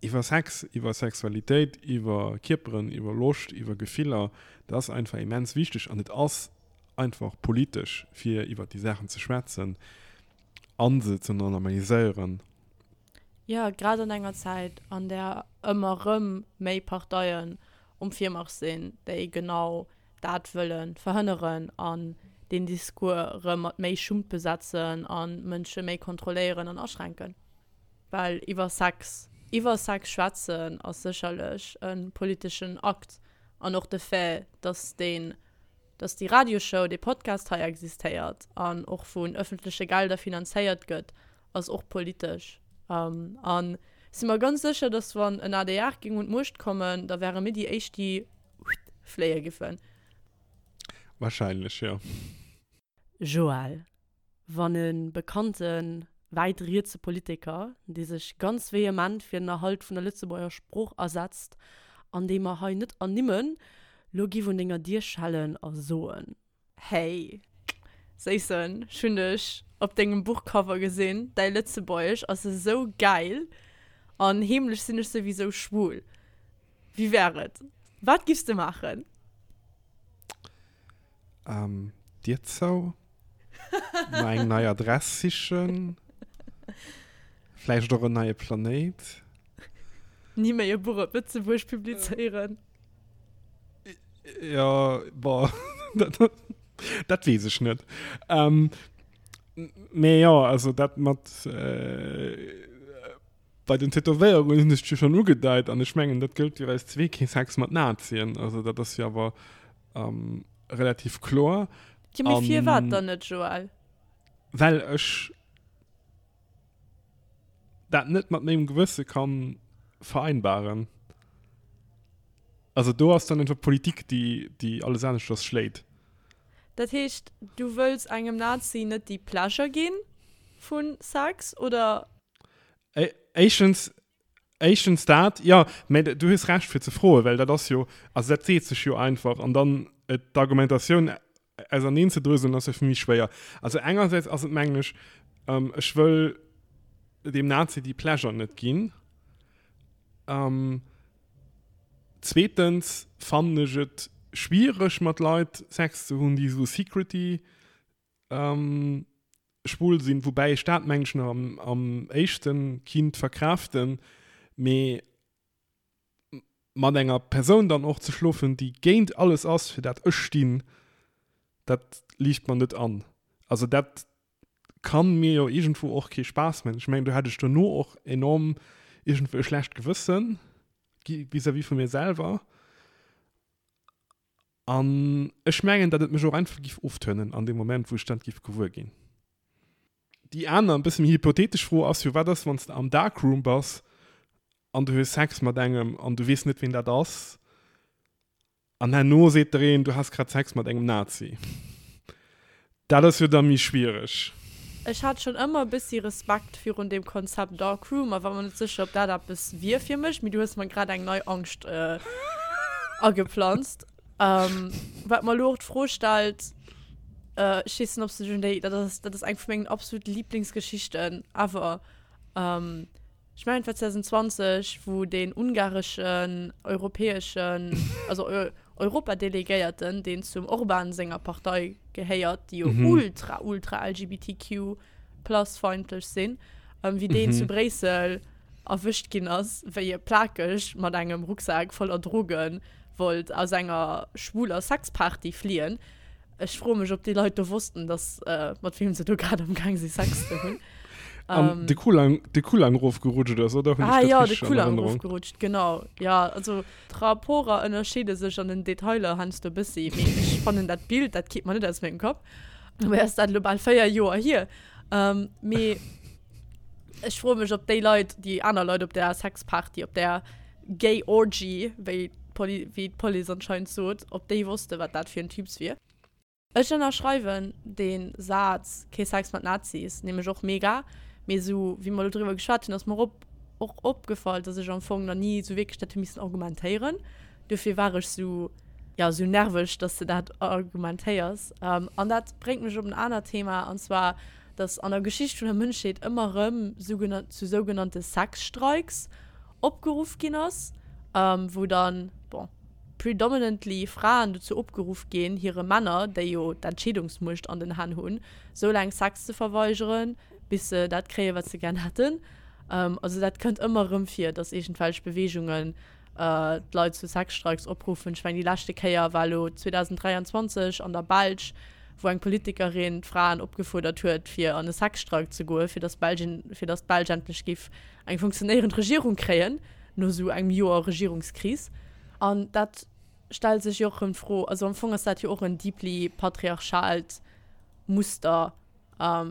iwwer Sex, iwwer Sexualitéit, iwwer Kierperen, iwwer Loscht, iwwer Gefiller. Dat ass einfach immens wichteg an et ass einfach politesch, fir iwwer déi Saachen ze schwätzen a se ze normaliséieren. Jo, grad an enger Zäit, an där ëmmer erëm méi Parteien um Virmarsch sinn, déi genau dat wëlle verhënneren an deen Discours erëm mat méi Schummt besetzen a Mënsche méi kontrolléieren an aschränken. Well iwwer Sex, iwwer Sex schwätzen ass sécherlech e politeschen Akt an och de Fait, dass deen, dass déi Radioshow, dee Podcast hei existéiert an och vun ëffentleche Gelder finanzéiert gëtt, ass och politesch. An si mer ganz sécher, datt wann en adr géing un d'Muecht kommen, da wäre mir déi éischt, déi fléie giffen. Wahrscheinlech, jo. Joël, wann e bekannte wäit rietse Politiker, dee sech ganz vehement fir den Erhalt vun der Lëtzebuerger Sprooch asetzt an dee mer hei net ernimmen, lo giff un denger Dier schellen a soen. Hey Séissen, ech hunn dech op dengem Buchcover gesinn, däi Lëtzebuergesch ass esou gäil an heemlech sinn ech souwisou schwul. Wéi wär et? Wat giffs de maachen? Ähm, Dier zou, mer eng nei Adress sichen, vläicht och en neie Planéit. Ni méi e Buch op Lëtzebuerg publizéieren. Jo, bon, dat, dat weess ech net. Ähm, mee jo, also dat mat äh, bei den Tätowéierungen hunn ech jo schonn ugedeit an ech mengen, dat gëllt fir eis zwee, kee Sex mat Nazien. Also dat ass jo awer ähm, relativ kloer. Jo, mee firwat dann net, Joël? Well ech dat net mat mengem Gewësse kann vereinbaren. Also do ass dann einfach Politik, déi, déi alles aneschters schléit. Dat heescht, du wëlls engem Nazi net déi Pleasure ginn vu Sex, oder? Éischtens, éischtens dat, jo, mä du hues Recht fir ze froen, well dat ass jo, also dat seet sech jo einfach an dann d'Argumentatioun auserneen ze dröselen ass jo fir méi schwéier. Also engersäits ass et mengen ech, ech wëll deem Nazi déi Pleasure net ginn. Zweetens fannen ech et schwiereg mat Leit Sex ze hunn, déi esou secrety schwul sinn, woubäi ech dat mengen ech nach am, am éischten kinnt verkraaften, mee mat enger Persoun dann och ze schlofen, déi géint alles ass, fir dat ech stinn, dat liicht mer net an. Also dat kann mir jo iergendwou och kee Spaass man. Ech mengen, do hätt ech dono och enorm iergendwou e schlecht Gewëssen vis-à-vis vu mir selwer. An ech mengen, datt et mech och einfach giff oftönen an deem Moment, wou ech dat giff gewuer ginn. Déi aner, e bësse méi hypothetesch Fro ass jo, Wat ass, wann s de am Darkroom bass an du hues Sex mat engem an du weess net, ween dat ass? An herno seet der een, du has grad Sex mat engem Nazi. Dat ass jo da méi schwiereg. Ech hat schonn ëmmer e bëssi Respekt virun deem Konzept Dark Room a war mer net sécher, ob dat eppes wier fir mech, mee du hues mer grad eng nei Angscht ageplanzt. Wat mer elo och d'Fro stellt, ech weess net, ob s du dech un déi, dat ass, dat ass eng vu mengen absolute Liblingsgeschichten ever, Ech mengen et war 2020, wou deen ungareschen europäeschen, also Europadelegéierten, deen zum Orbán senger Partei gehéiert, déi jo ultra, ultra LGBTQ plus feindlech sinn, wéi deen zu Bréissel erwëscht ginn ass, wéi e plakeg mat engem Rucksak voller Droge wollt aus enger schwuler Sexparty fliehen. Ech froe mech, ob déi Leit do wossten, dass mat weem se do grad am Gaang si Sex ze hunn. An de Kulang, de Kulang rofgerutscht ass, oder? Hunn ech Ah dat ja, de richtig an Kulang Erënnerung? rofgerutscht, genau. Ja, also d'Rapporter ënnerscheede sech an den Detailer heiansdo e bëssi, mee ech fannen dat Bild, dat geet mer net aus mengem Kapp. Dobäi ass dat elo bal 4 Joer hier. Ähm, mee ech froe mech, ob déi Leit, déi aner Leit op där Sexparty, op där Gay Orgy, wéi d'Poli, wéi d'Police anscheinend sot, ob déi wosste wat dat fir en Typs wier. Ech ënnerschreiwen dee Saz, kee Sex mat Nazis, nämlech och mega. Mee esou wéi mer elo driwwer geschwat hunn, ass mer op och opgefall, dass ech am Fong nach ni esou wierklech dat hu missen argumentéieren. Dofir war ech esou, jo, esou nerveg, dass de dat argumentéiers. An dat bréngt mech op en anert Thema, an zwar, dass an der Geschicht vun der Mënschheet ëmmer erëm zu sougenannte Sexstreiks opgeruff ginn ass, wou dann, bon, predominantly Fraen dozou opgeruff ginn, hire Männer, déi jo d'Entscheedungsmuecht an den Hänn hunn, sou laang Sex ze verweigeren, bis se dat kréien, wat se gär hätten. Also dat kënnt ëmmer erëm vir, dass iergendwelch Beweegungen d'Leit zu Sexstreiks opruffen. Ech mengen, déi leschte Kéier war elo 2023 an der Belsch, wou eng Politikerin d'Fraen opgefuerdert huet, fir an e Sexstreik ze goen, fir dass Belgien, fir dass d'Belsch endlech géif eng funktionéierend Regierung kréien, no esou engem Joer Regierungskris. An dat stellt sech jo och erëm d'Fro, also am Fong ass dat jo och en deeply patriarchaalt Muster,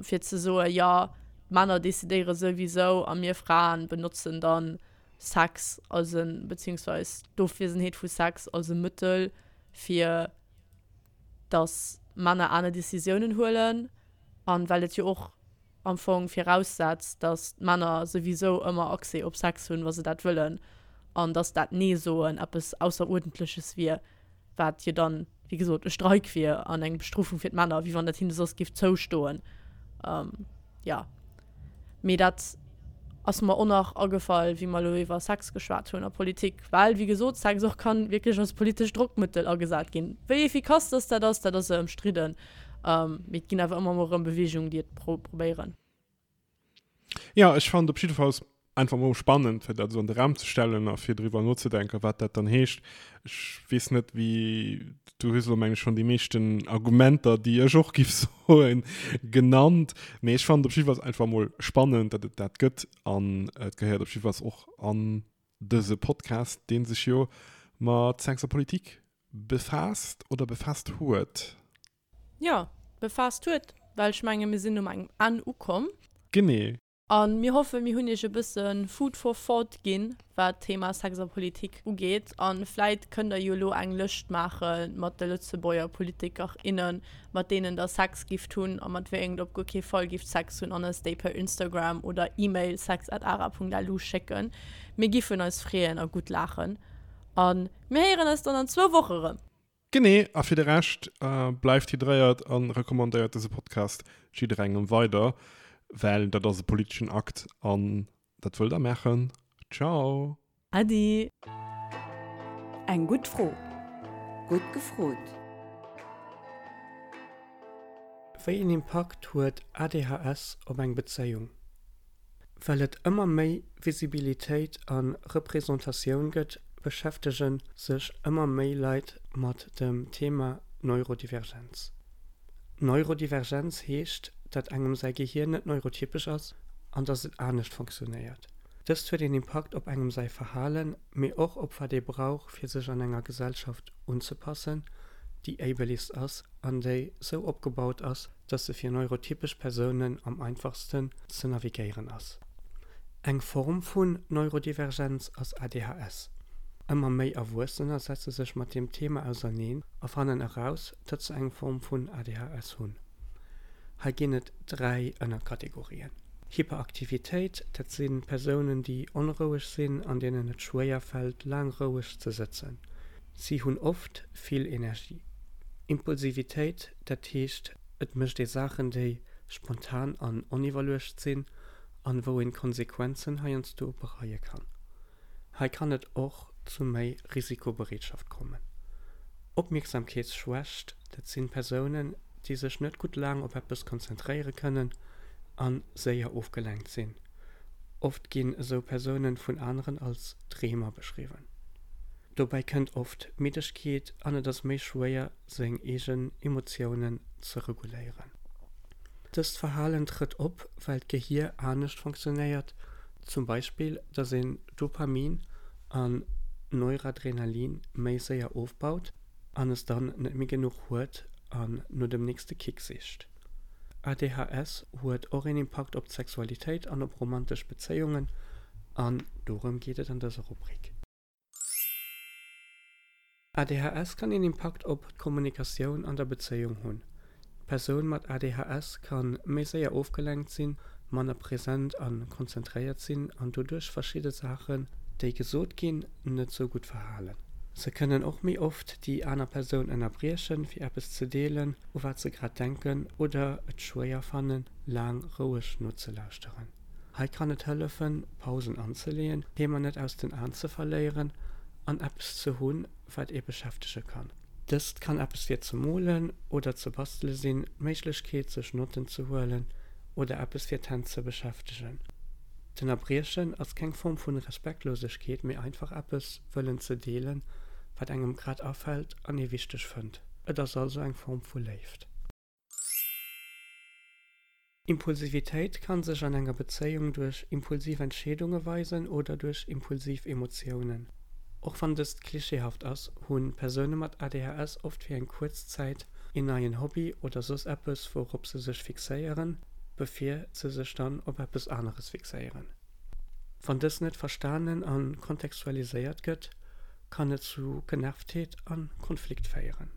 fir ze soen, jo, d'Männer decidéiere souwisou a mir Fraen benotzen dann Sex als e, beziehungsweis d'Ofwiesenheet vu Sex als e Mëttel, fir dass Männer aner Decisiounen huelen. An well et jo och am Fong viraussetzt, dass d'Männer souwisou ëmmer Accès op Sex hunn, wa se dat wëllen, an dass dat Nee-Soen eppes Ausseruerdentleches wier, wat jo dann, wéi gesot, e Streik wier an eng Bestrofung fir d'Männer, wéi wann dat hinne soss géif zoustoen. Jo. Mee dat ass mer och nach agefall, wéi mer elo iwwer Sex geschwat hunn a Politik, well, wéi gesot, Sex och kann wierklech als politescht Drockmëttel agesat ginn. Wéi efficace dass dat ass, dat ass ëmstridden. Mee et ginn awer ëmmer mol erëm Beweegungen, déi et probéieren. Jo, ech fannen op jiddefalls. Einfach mol spannend, fir dat esou an de Raum ze stellen a fir driwwer nozedenken, wat dat dann heescht. Ech weess net, wéi, du hues elo, meng ech, schonn déi meeschten Argumenter, déi ech och giff soen, genannt. Mee ech fannen et op jiddefalls einfach mol spannend, datt et dat gëtt an et gehéiert op jiddefalls och an dëse Podcast, dee sech jo mat Sex a Politik befaasst oder befaasst huet. Jo, befaasst huet, well ech menge mir sinn um engem Enn ukomm. Genee. A mir hoffen, mir hunn iech e bësse Food for thought ginn, wat d'Thema Sex a Politik ugeet. A vläit kënnt der jo elo eng Lëscht maache mat de Lëtzebuerger Politiker, innen, mat deenen der Sex gifft hunn a mat wéi engem der op guer kee Fall gifft Sex hunn an eis déi per Instagram oder E-Mail sex@ara.lu schécken. Mir giffen eis freeën a gutt laachen. A mir héieren eis dann an zwou Woche rëm. Genee, a fir de Rescht, bleift hydréiert a recommandéiert dëse Podcast jidderengem weider, well dat ass e politeschen Akt an dat wëllt der maachen. Ciao! Äddi! Eng gutt Fro. Gutt gefrot. Wéi een Impakt huet ADHS op eng Bezéiung? Well et ëmmer méi Visibilitéit a Representatioun gëtt, beschäftege sech ëmmer méi Leit mat dem Thema Neurodivergenz. Neurodivergenz heescht, datt engem säi Gehier net neurotypesch ass an datt et anescht funktionéiert. Dëst huet een Impakt op engem säi Verhalen, mee och op wat ee brauch fir sech an enger Gesellschaft unzepassen, déi ableist ass an déi sou opgebaut ass, dass se fir neurotypesch Persounen am einfachsten ze navigéieren ass. Eng Form vun Neurodivergenz ass ADHS. Ëmmer méi Erwuessener setze sech mat deem Thema auserneen a fannen eraus, datt se eng Form vun ADHS hunn. Hei ginn et 3 Ënnerkategorien. Hyperaktivitéit, dat si Persounen, déi onroueg sinn an deenen et schwéier fält, laang roueg ze sëtzen. Si hunn oft vill Energie. Impulsivitéit, Dat heescht, et mécht ee Saachen, déi spontan an oniwwerluecht sinn an wou een d'Konsequenzen heiansdo bereie kann. Hei kann et och zu méi Risikobereetschaft kommen. Opmierksamkeetsschwächt, dat sinn Persounen, déi sech net gutt laang op eppes konzentréiere kënnen an séier ofgelenkt sinn. Oft ginn esou Persounen vun aneren als Dreemer beschriwwen. Dobäi kënnt oft Middegkeet an et ass méi schwéier seng eegen Emotiounen ze reguléieren. Dëst Verhalen trëtt op, well d'Gehier anescht funktionéiert, zum Beispill datt een Dopamin an Neuradrenalin méi séier ofbaut an es dann net méi genuch huet an no dem nächste Kick sicht. ADHS huet och een Impakt op d'Sexualitéit an op romantesch Bezéiungen an dorëm geet et an dëser Rubrik. ADHS kann een Impakt op d'Kommunikatioun an der Bezéiung hunn. D'Persoun mat ADHS ka méi séier ofgelenkt sinn, manner present a konzentréiert sinn an doduerch verschidde Saachen, déi gesot ginn, net sou gutt verhalen. Se kënnen och méi oft déi aner Persoun ënnerbriechen, fir eppes ze deelen, u wat se grad denken oder et schwéier fannen, laang roueg nozelauschteren. Hei kann et hëllefen, Pausen anzeleeën, d'Thema net aus den Aen ze verléieren an eppes ze hunn, wat ee beschäftege kann. Dëst kann eppes fir ze molen oder ze bastele sinn, d'Méiglechkeet sech Notten ze huelen oder eppes fir d'Hänn ze beschäftegen. D'Ënnerbriechen ass keng Form vun Respektlosegkeet, mee einfach eppes wëllen ze deelen, wat engem grad afält an ee wichteg fënnt. Et ass also eng Form vu Léift. Impulsivitéit kann sech an enger Bezéiung duerch impulsiv Entscheedunge weisen oder duerch impulsiv Emotiounen. Och wann dëst klischeehaft ass, hu Persoune mat ADHS oft fir eng kuerz Zäit een neien Hobby oder soss eppes wourop se sech fixéieren, bevir se sech dann op eppes aneres fixéieren. Wann dës net verstanen a kontextualiséiert gëtt, kann et zu Genervtheet a Konflikt féieren.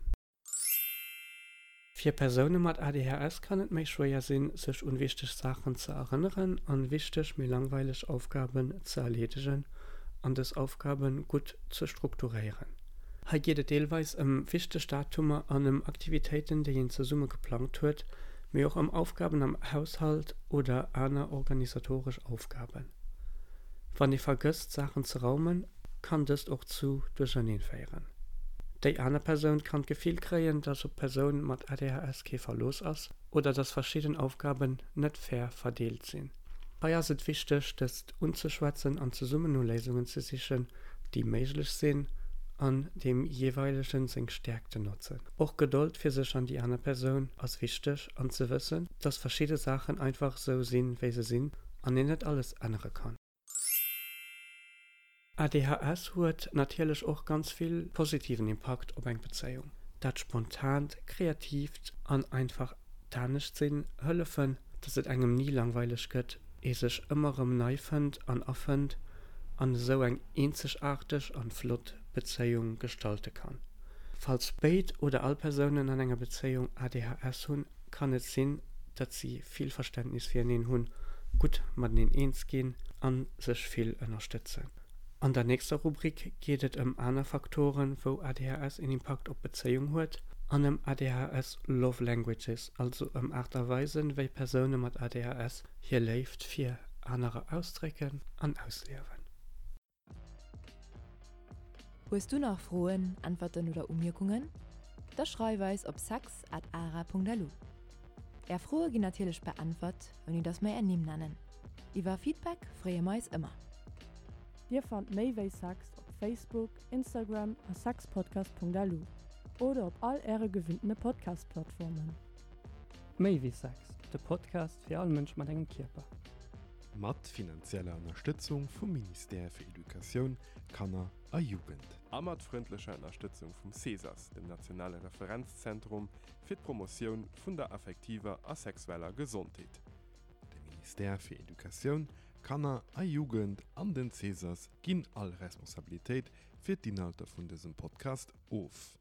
Fir Persoune mat ADHS kann et méi schwéier sinn, sech un wichteg Saachen ze erënneren an wichteg, mee langweileg Aufgaben ze erleedegen an dës Aufgaben gutt ze strukturéieren. Hei geet et deelweis ëm wichteg Datumer an ëm Aktivitéiten, déi een zesumme geplangt huet, mee och ëm Aufgaben am Haushalt oder aner organisatoresch Aufgaben. Wann ee vergësst, Saachen ze raumen, kann dëst och zu Duercherneen féieren. Déi aner Persoun kann d'Gefill kréien, dass op d'Persoun mat ADHS kee Verlooss ass oder dass verschidden Aufgaben net fair verdeelt sinn. Hei ass et wichteg, dëst unzeschwätzen an zesummen no Léisungen ze sichen, déi méiglech sinn an deem jeeweilegen seng Stäerkten notzen. Och Gedold fir sech an déi aner Persoun ass wichteg an ze wëssen, dass verschidde Saachen einfach sou sinn, wéi se sinn an een net alles ännere kann. ADHS huet natierlech och ganz vill positiven Impakt op eng Bezéiung. Dat spontant, kreatiivt an einfach d'Anescht-sinn hëllefen, dass et engem ni langweileg gëtt, ee sech ëmmer rëm nei fënnt an erfënnt an esou eng eenzegaarteg an flott Bezéiung gestalte kann. Falls béid oder all Persounen an enger Bezéiung ADHS hunn, kann et sinn, datt si vill Verständnis fireneen hunn, gutt mateneen eens ginn a sech vill ënnerstëtzen. An der nächster Rubrik geet et ëm aner Faktoren, wou ADHS een Impakt op d'Bezéiung huet, an ëm ADHS Love Languages, also ëm Aart a Weisen, wéi Persoune mat ADHS hir Léift fir anerer ausdrécken an ausliewen. Hues du nach Froen, Äntwerten oder Umierkungen? Da schreif eis op sex at ara.lu. Är Froe ginn natierlech beäntwert, ouni dass mer är Nimm nennen. Iwwer Feedback freeë mer eis ëmmer. Dir fannt méi wéi Sex op Facebook, Instagram a sexpodcast.lu oder op all äre gewinntene Podcast-Plattformen. Méi wéi Sex, de Podcast fir all Mënsch mat engem Kierper. Mat finanzieller Ënnerstëtzung vum Ministère fir Educatioun, Kanner a Jugend. A mat frëndlecher Ënnerstëtzung vum CESAS, dem nationale Referenzzentrum fir d'Promotioun vun der affektiver a sexueller Gesondheet. De Ministère fir Educatioun, Kanner a Jugend an den CESAS ginn all Responsabilitéit fir d'Inhalter vun dësem Podcast of.